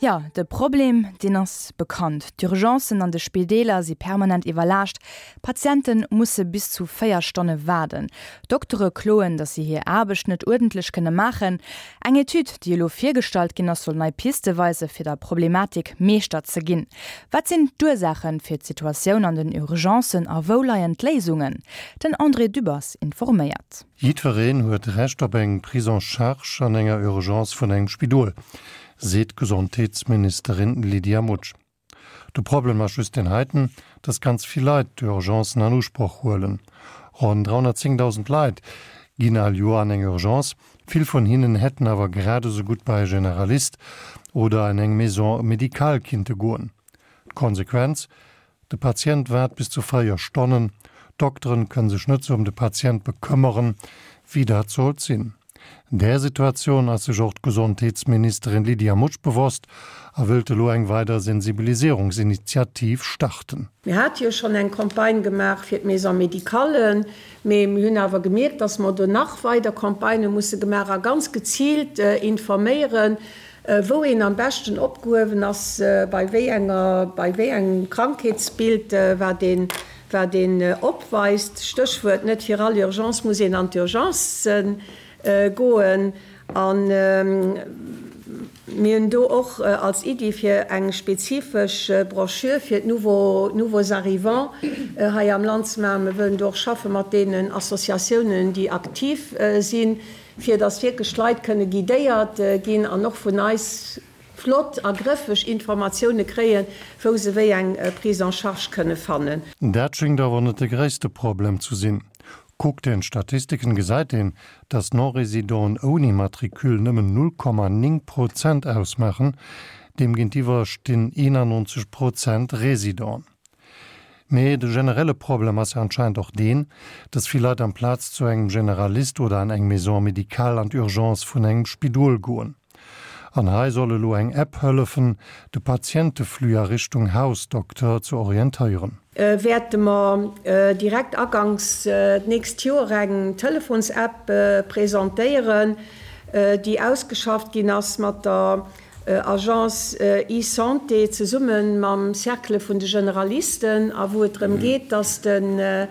Jo, de Problem, deen ass bekannt. D'Urgencen an de Spideeler si permanent iwwerlaascht. Patiente musse bis zu 4 Stonne waarden. Doktere kloen, datt si hir Aarbecht net uerdentlech kënne maachen. Eng Etüd, déi elo virgestallt ginn ass, soll nei Piste weise fir der Problematik Meeschter ze ginn. Wat sinn d'Ursaache fir d'Situatioun an den Urgencen a wou leien d'Léisungen? Den André Dübbers informéiert. Jiddwereen huet Recht op eng Prise en charge an enger Urgence vun engem Spidol, seet d'Gesondheetsministerin Lydia Mutsch. De Problem ass just deen heiten, dass ganz vill Leit d'Urgencen an Usproch huelen. Ronn 310.000 Leit ginn all Joer an eng Urgence, vill vun hinnen hätten awer grad esou gutt bei e Generalist oder an eng Maison médicale kinnte goen. D'Konsequenz, De Patient waart bis zu 4 Stonnen, d'Dokteren kënne sech net sou ëm de Patient bekëmmeren, wéi dat sollt sinn. Där Situatioun ass sech och d'Gesondheetsministerin Lydia Mutsch bewosst a wëllt elo eng weider Sensibilisierungsinitiativ starten. Mir hate jo schonn eng Campagne gemaach fir d'Maison-médicallen, mee mir hunn awer gemierkt, dass mer do nach weider Campagnë musse gemaach a ganz geziilt informéieren, Wou een am beschten opgehuewen ass, bei wéi enger, bei wéi engem Krankheetsbild, wat een, wat een opweist. Stéchwuert, net fir all Urgence muss een an d'Urgence goen. A mir hunn do och als Iddi fir eng spezifesch Broschür fir d'nouveaux, nouveaux arrivants hei am Land ze maachen. Mir wëllen do och schaffe mat deenen Associatiounen, déi aktiv sinn. fir dass wierklech d'Leit kënne guidéiert ginn an och vun eis flott a grëffeg Informatioune kréien, wou se wéi eng Prise en charge kënne fannen. Dat schéngt awer net de gréisste Problem zu sinn. Kuckt een d'Statistiken, gesäit een, dass d'Non-Résidenten ouni Matricule nëmmen 0,9 Prozent ausmaachen, deem géintiwwer stinn 91 Prozent Résidenten. Mee de generelle Problem ass jo anscheinend och deen, dass vill Leit amplaz zu engem Generalist oder an eng Maison médicale an d'Urgence vun engem Spidol goen. An hei soll elo eng App hëllefen, de Patienteflux a Richtung Hausdokter ze orientéieren. Wäerte mer direkt aganks d'nächst Joer eng Telefons-App presentéieren, déi ausgeschafft ginn ass mat der Agence eSanté zesumme mam Cercle vun de Generalisten a wou et drëm geet, dass de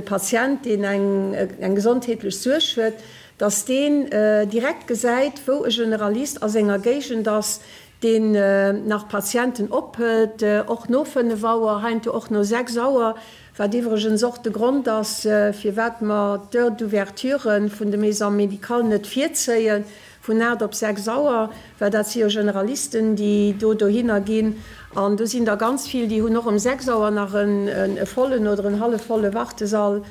Patient, deen eng gesondheetlech Suerg huet, dass deen direkt gesäit, wou e Generalist a senger Géigend ass, deen nach Patienten ophëlt, och no 5 Auer, heiansdo och no 6 Auer, wat iwwregens och de Grond ass, firwat mer d'Heure d'ouverture vun de Maisons médicales net virzéien. Vun 8 op 6 Auer, well dat si jo Generalisten, déi do dohinner ginn. An do sinn der ganz vill, déi hunn och ëm 6 Auer nach e vollen oder en hallefvolle Wartesall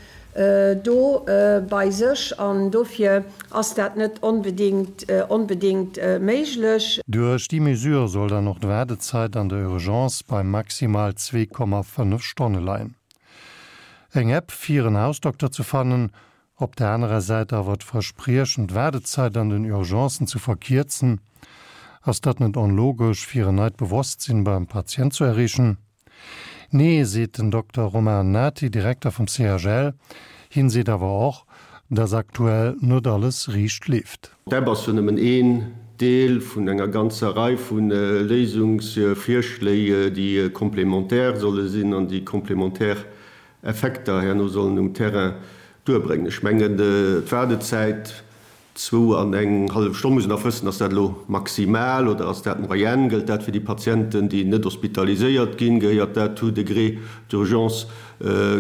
do bei sech. An dofir ass dat net onbedéngt, onbedéngt méiglech. Duerch déi Mesure soll dann och d'Waardezeit an der Urgence bei maximal 2,5 Stonne leien. Eng App fir en Hausdokter ze fannen, Op der anerer Säit awer d'Verspriechen, d'Waardezeit an den Urgencen ze verkierzen. Ass dat net onlogesch, fir en neit Bewosstsinn beim Patient zu erreechen? Nee, seet den Dokter Romain Nati, Direkter vum CHL. Hien seet awer och, dass aktuell net alles riicht leeft. D'App ass jo nëmmen een Deel vun enger ganzer Rei vu Léisungsvirschléi, déi complémentaire solle sinn an déi complémentaire Effekter herno sollen um Terrain duerbréngen. Ech mengen, d'Waardezäit, zwou an eng hallef Stonn, muss een nach wëssen, ass dat elo maximal oder ass dat d'Moyenne? Gëllt dat fir déi Patienten, déi net hospitaliséiert ginn? Gehéiert dat tout degré d'urgence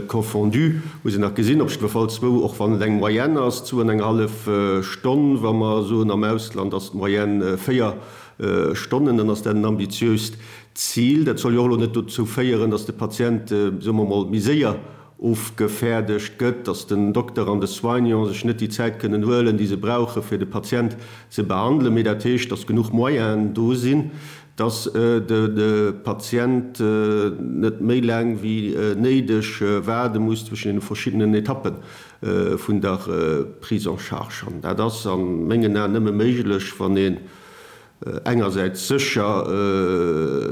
confondu? Muss een nach gesinn. Op jiddwer Fall zwou, och wann et eng Moyenne ass, zwou an eng hallef Stonn. Wa mer soen, am Ausland ass d'Moyenne 4 Stonnen, dann ass dat en ambitiöst Zil. Dat soll jo och elo net dozou féieren, dass de Patient, soe mer emol, méi séier ofgefäerdegt gëtt, dass den Dokter an de Soignant sech net déi Zäit kënnen huelen, déi se brauchen, fir de Patient ze behandelen, mee dat heescht, dass genuch Moyenen do sinn, dass de Patient net méi laang wéi néideg waarde muss zwëschen deene verschiddenen Etappe vun der Prise en charge. An dat ass a mengen Aen nëmme méiglech, wann ee. Engersäits sécher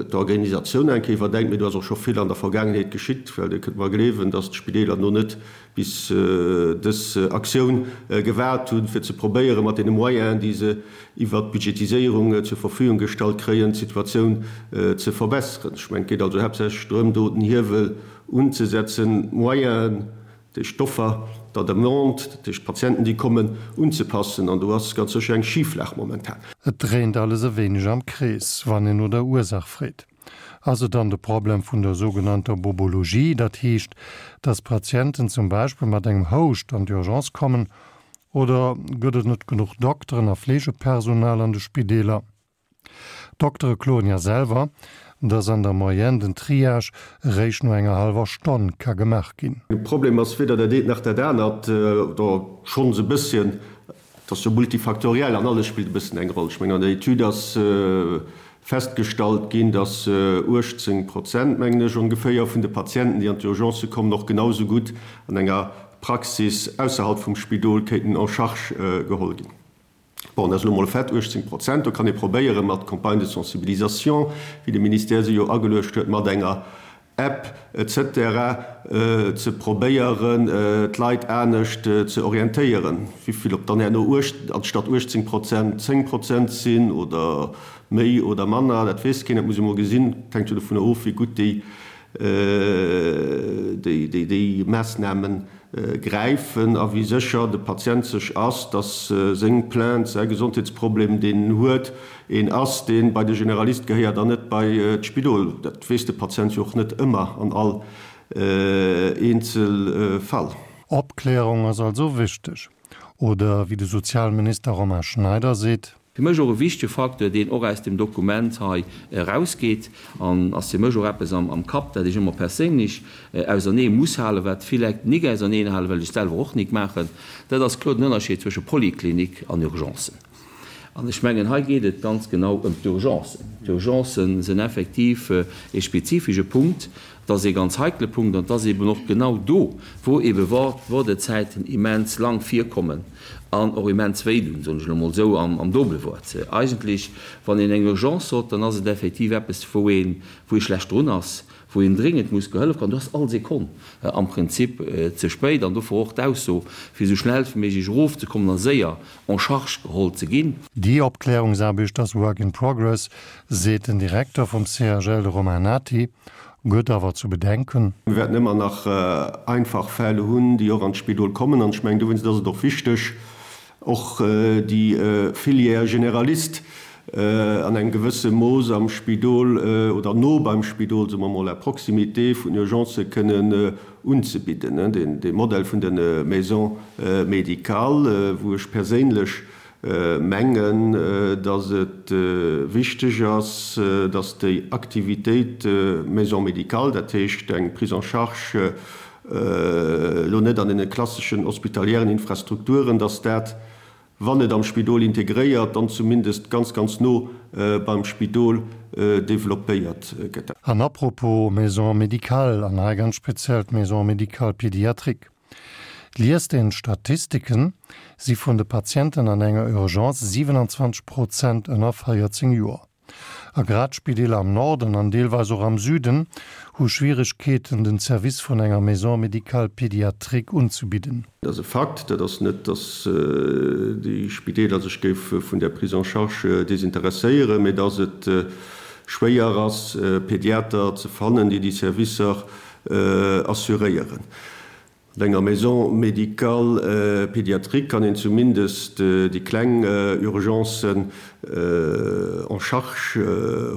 d'Organisatioun eng Kéier iwwerdenkt, mee do ass och scho vill an der Vergaangenheet geschitt, well Dir kënnt mer gleewen, dass d'Spideeler no net bis dës Aktioun gewaart hunn, fir ze probéieren, mat deene Moyenen, déi se iwwert d'Budgetiséierung zur Verfügung gestallt kréien, d'Situatioun ze verbesseren. Ech mengen, et geet also haaptsächlech drëm, do den Hiewel unzesetzen, d'Moyenen, déi Stoffer der Demande, dat heescht d'Patienten, déi kommen, unzepassen. An do ass ganz sécher eng Schiflag momentan. Et dréint alles e wéineg am Krees, wann een no der Ursaach freet. Ass et dann de Problem vun der sougenannter Bobologie, dat heescht, dass Patienten zum Beispill mat engem Houscht an d'Urgence kommen, oder gëtt et net genuch Dokteren a Fleegepersonal an de Spideeler? D'Doktere kloen ja selwer, dass an der Moyenne den Triage eréischt no enger hallwer Stonn ka gemaach ginn. De Problem ass weder dat eent nach dat anert, oder schonns e bësschen, et ass jo multifaktoriell an alles spillt e bëssen eng Roll. Ech mengen, an der Etüd ass festgestallt ginn, dass 18 Prozent, mengen ech, ongeféier vun de Patienten, déi an d'Urgencë kommen, och genau esou gutt an enger Praxis ausserhalb vum Spidol kéinten en charge geholl ginn. Bon, dat ass elo mol e Fait, 18 Prozent. Do kann ee probéieren, mat Campagnes de sensibilisation, wéi de Ministère se jo ageluecht huet, mat enger App et cetera ze probéieren, d'Leit anescht ze orientéieren. Wivill, ob dann herno anstatt 18 Prozent 10 Prozent sinn oder méi oder manner, dat weess keen, dat muss ee mol gesinn. Dat hänkt jo dovunner of, wéi gutt déi déi Maassnamen gräifen a wéi sécher de Patient sech ass, dass seng Plainte, säi Gesondheetsproblem, deen en huet, een ass, dee bei de Generalist gehéiert an net bei d'Spidol. Dat weess de Patient jo och net ëmmer an all eenzel Fall. Opklärung ass also wichteg. Oder wéi de Sozialminister Romain Schneider seet. Fir mech och e wichtege Facteur, deen och aus dem Dokument hei erausgeet, an ass fir mech och eppes am Kapp, dat ech ëmmer perséinlech ausernee muss halen, wat vill Leit nik auserneen halen, well ech et selwer och nik maachen, dat ass kloer den Ënnerscheed zwësche Poliklinik an Urgencen. An ech mengen, hei geet et ganz genau ëm d'Urgencen. D'Urgencen sinn effektiv e spezifische Punkt, Et ass ee ganz heikle Punkt an et ass eeben och genau do, wou eebe Woardezäiten immens lang virkommen an och immens wéidun, soen ech elo emol esou am Dobelwuert. Eigentlech, wann een eng Urgence hott, dann ass et effektiv eppes, wou een, wou ee schlecht drun ass, wou een dringend muss gehollef kréien. Do ass all Sekonn am Prinzip ze spéit an dofir och d'Ausso, fir esou schnell wéi méiglech erofzekommen a séier en charge geholl ze ginn. Déi Opklärungsaarbecht ass work in progress, seet den Direkter vum CHL, de Romain Nati, gëtt awer zu bedenken. Mir wäerten ëmmer nach einfach Fäll hunn, déi och an d'Spidol kommen. An ech mengen, dowéinst ass et och wichteg, och déi Filière généraliste an engem gewësse Mooss am Spidol oder no beim Spidol, soe mer mol, à proximité vun Urgencë kënnen unzebidden. Dee Modell vun de Maisons médicales, wou ech perséinlech mengen, datt et wichteg ass, datt déi Aktivitéit Maison médicale, dat heescht eng Prise en charge elo net an deene klasseschen hospitaliären Infrastrukturen, datt dat, wann net am Spidol integréiert, dann zumindest ganz, ganz no beim Spidol développéiert gëtt. An à propos Maison médicale, an hei ganz speziell d'Maison médicale pédiatrique, Liest een d'Statistiken, si vun de Patienten an enger Urgence 27 Prozent ënner 14 Joer. A grad d'Spideeler am Norden an deelweis och am Süden hu Schwieregkeeten, den Service vun enger Maison médicale pédiatrique unzebidden. Dat ass e Fakt. Dat ass net, datt déi Spideeler sech géife vun där Prise en charge desinteresséieren, mee datt et schwéier ass, Pediater ze fannen, déi déi Servicer assuréieren. An enger Maison médicale pédiatrique kann een zumindest déi kleng Urgencen en charge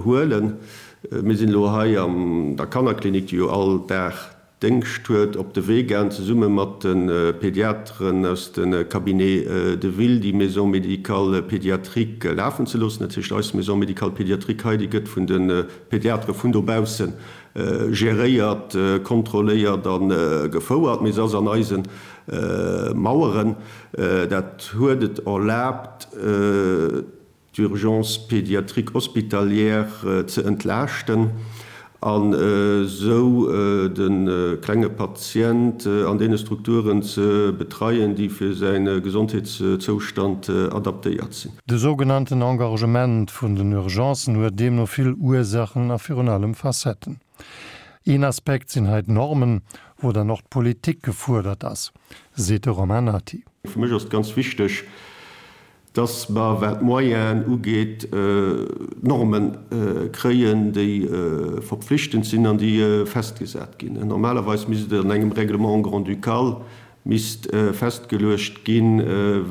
huelen. Mir sinn elo hei an der Kannerklinik, déi jo all Dag Déngscht huet, op de Wee gaang, zesumme mat de Pediateren aus de Cabinets de ville déi Maison médicale pédiatrique lafen ze loossen. Dat heescht, eis Maison médicale pédiatrique hei, déi gëtt vun de Pediatere vun dobausse geréiert, kontrolléiert a gefouert, mee se ass an eise Maueren. Dat huet et erlaabt, d'Urgence pédiatrique hospitalière ze entlaaschten. An esou de klenge Patient an deene Strukturen ze betreien, déi fir säi Gesondheetszoustand adaptéiert sinn. De sougenannten Engorgement vun den Urgencen huet deemno vill Ursachen a virun allem Facetten. Een Aspekt sinn hei d'Normen, wou dann och d'Politik gefuerdert ass, seet de Romain Nati. Fir mech ass et ganz wichteg, dass mer, wat d'Moyenen ugeet, Norme kréien, déi verpflichtend sinn an déi festgesat ginn. Normalerweis misst et an engem Règlement grand-ducal misst festgeluecht ginn,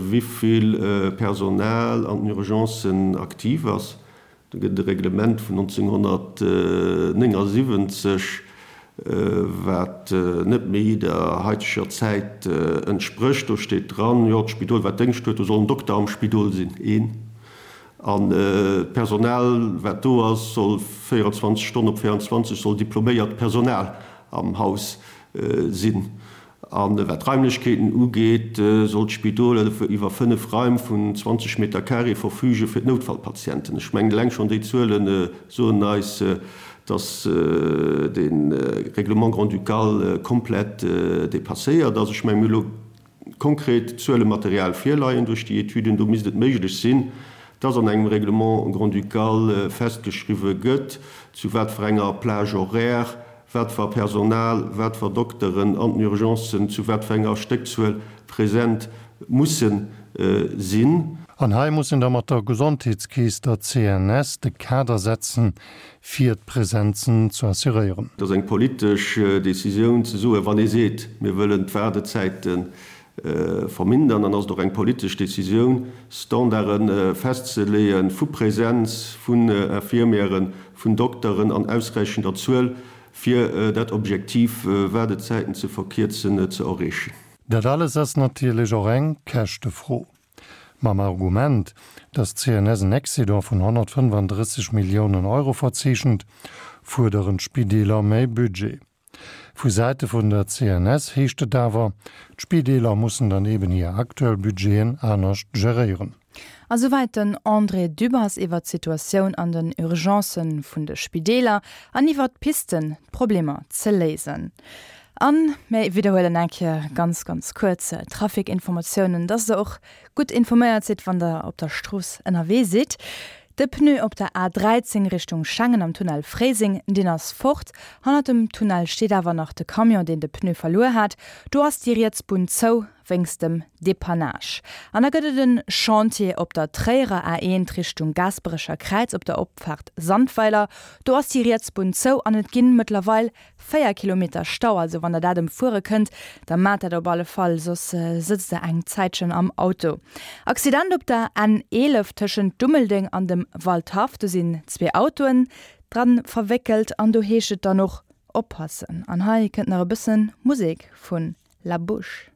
wivill Personal an den Urgencen aktiv ass. Do gëtt et e Reglement vun 1979, wat net méi der haiteger Zäit entsprécht. Do steet dran, jo, d'Spidol, wat Déngscht huet, do soll en Dokter am Spidol sinn, een. An d'Personal, wat do ass, soll 24 Stonnen op 24 soll diploméiert Personal am Haus sinn. A wat d'Raimlechkeeten ugeet, soll d'Spidol iwwer 5 Raim vun 20 Meter carré verfüge fir d'Noutfallpatienten. Ech mengen, eleng schonn déi Zuele soen eis, dass de Règlement grand-ducal komplett dépasséiert ass. Ech mengen, mir hu elo konkret Zuelematerial virleien duerch déi Etüden. Do misst et méiglech sinn, dass an engem Règlement grand-ducal festgeschriwwe gëtt, zu wat fir enger Plage horaire wat fer Personal, wat fer Dokteren an den Urgencen zu wat fer enger Stéckzuel present musse sinn. An hei muss een da mat der Gesondheetskeess, der CNS, de Kader setzen, fir d'Presenzen ze assuréieren. Et ass eng politesch Décisioun ze soen, wann ee seet, mir wëllen d'Waardezäite vermindern, dann ass et och eng politesch Décisioun, Standarde festzeleeë vu Präsenz vun Infirmieren, vun Dokteren an ausräichender Zuel, fir dat Objektiv, Waardezäiten ze verkierzen, ze erreechen. Dat alles ass natierlech och eng Käschtefro. Mam Argument, datt d'CNS en Excédent vun 135 Milliounen Euro verzeechent, fuerderen d'Spideeler méi Budget. Vu Säite vun der CNS heescht et awer, d'Spideeler mussen dann eben hir aktuell Budgeten anescht geréieren. A souwäit den André Dübbers iwwer d'Situatioun an den Urgencë vun de Spideeler an iwwer d'Pisten, d'Problemer ze léisen. A mir widderhuelen eng Kéier ganz, ganz kuerz d'Trafic-Informatiounen, dass der och gutt informéiert sidd, wann der op der Strooss ënnerwee sidd. De Pneu op der A 13 Richtung Schengen am Tunnel Fréiseng, deen ass fort. Hannert dem Tunnel steet awer nach de Camion, deen de Pneu verluer hat. Do ass déi riets Bunn zou wéinst dem Depannage. An da gëtt et en Chantier op der Tréierer A1 Richtung Gaasperecher Kräiz op der Opfaart Sandweiler. Do ass déi riets Bunn zou an et ginn mëttlerweil 4 Kilometer Stau, also wann der dat emfuere kënnt, da maacht dat op alle Fall, soss sëtzt der eng Zäitchen am Auto. Accident op der N 11 tëschent Dummeldeng an dem Waldhaff, do sinn zwee Autoen dran verwéckelt an do heescht et dann och oppassen. An hei kënnt nach e bëssen Musek vun La Bouche.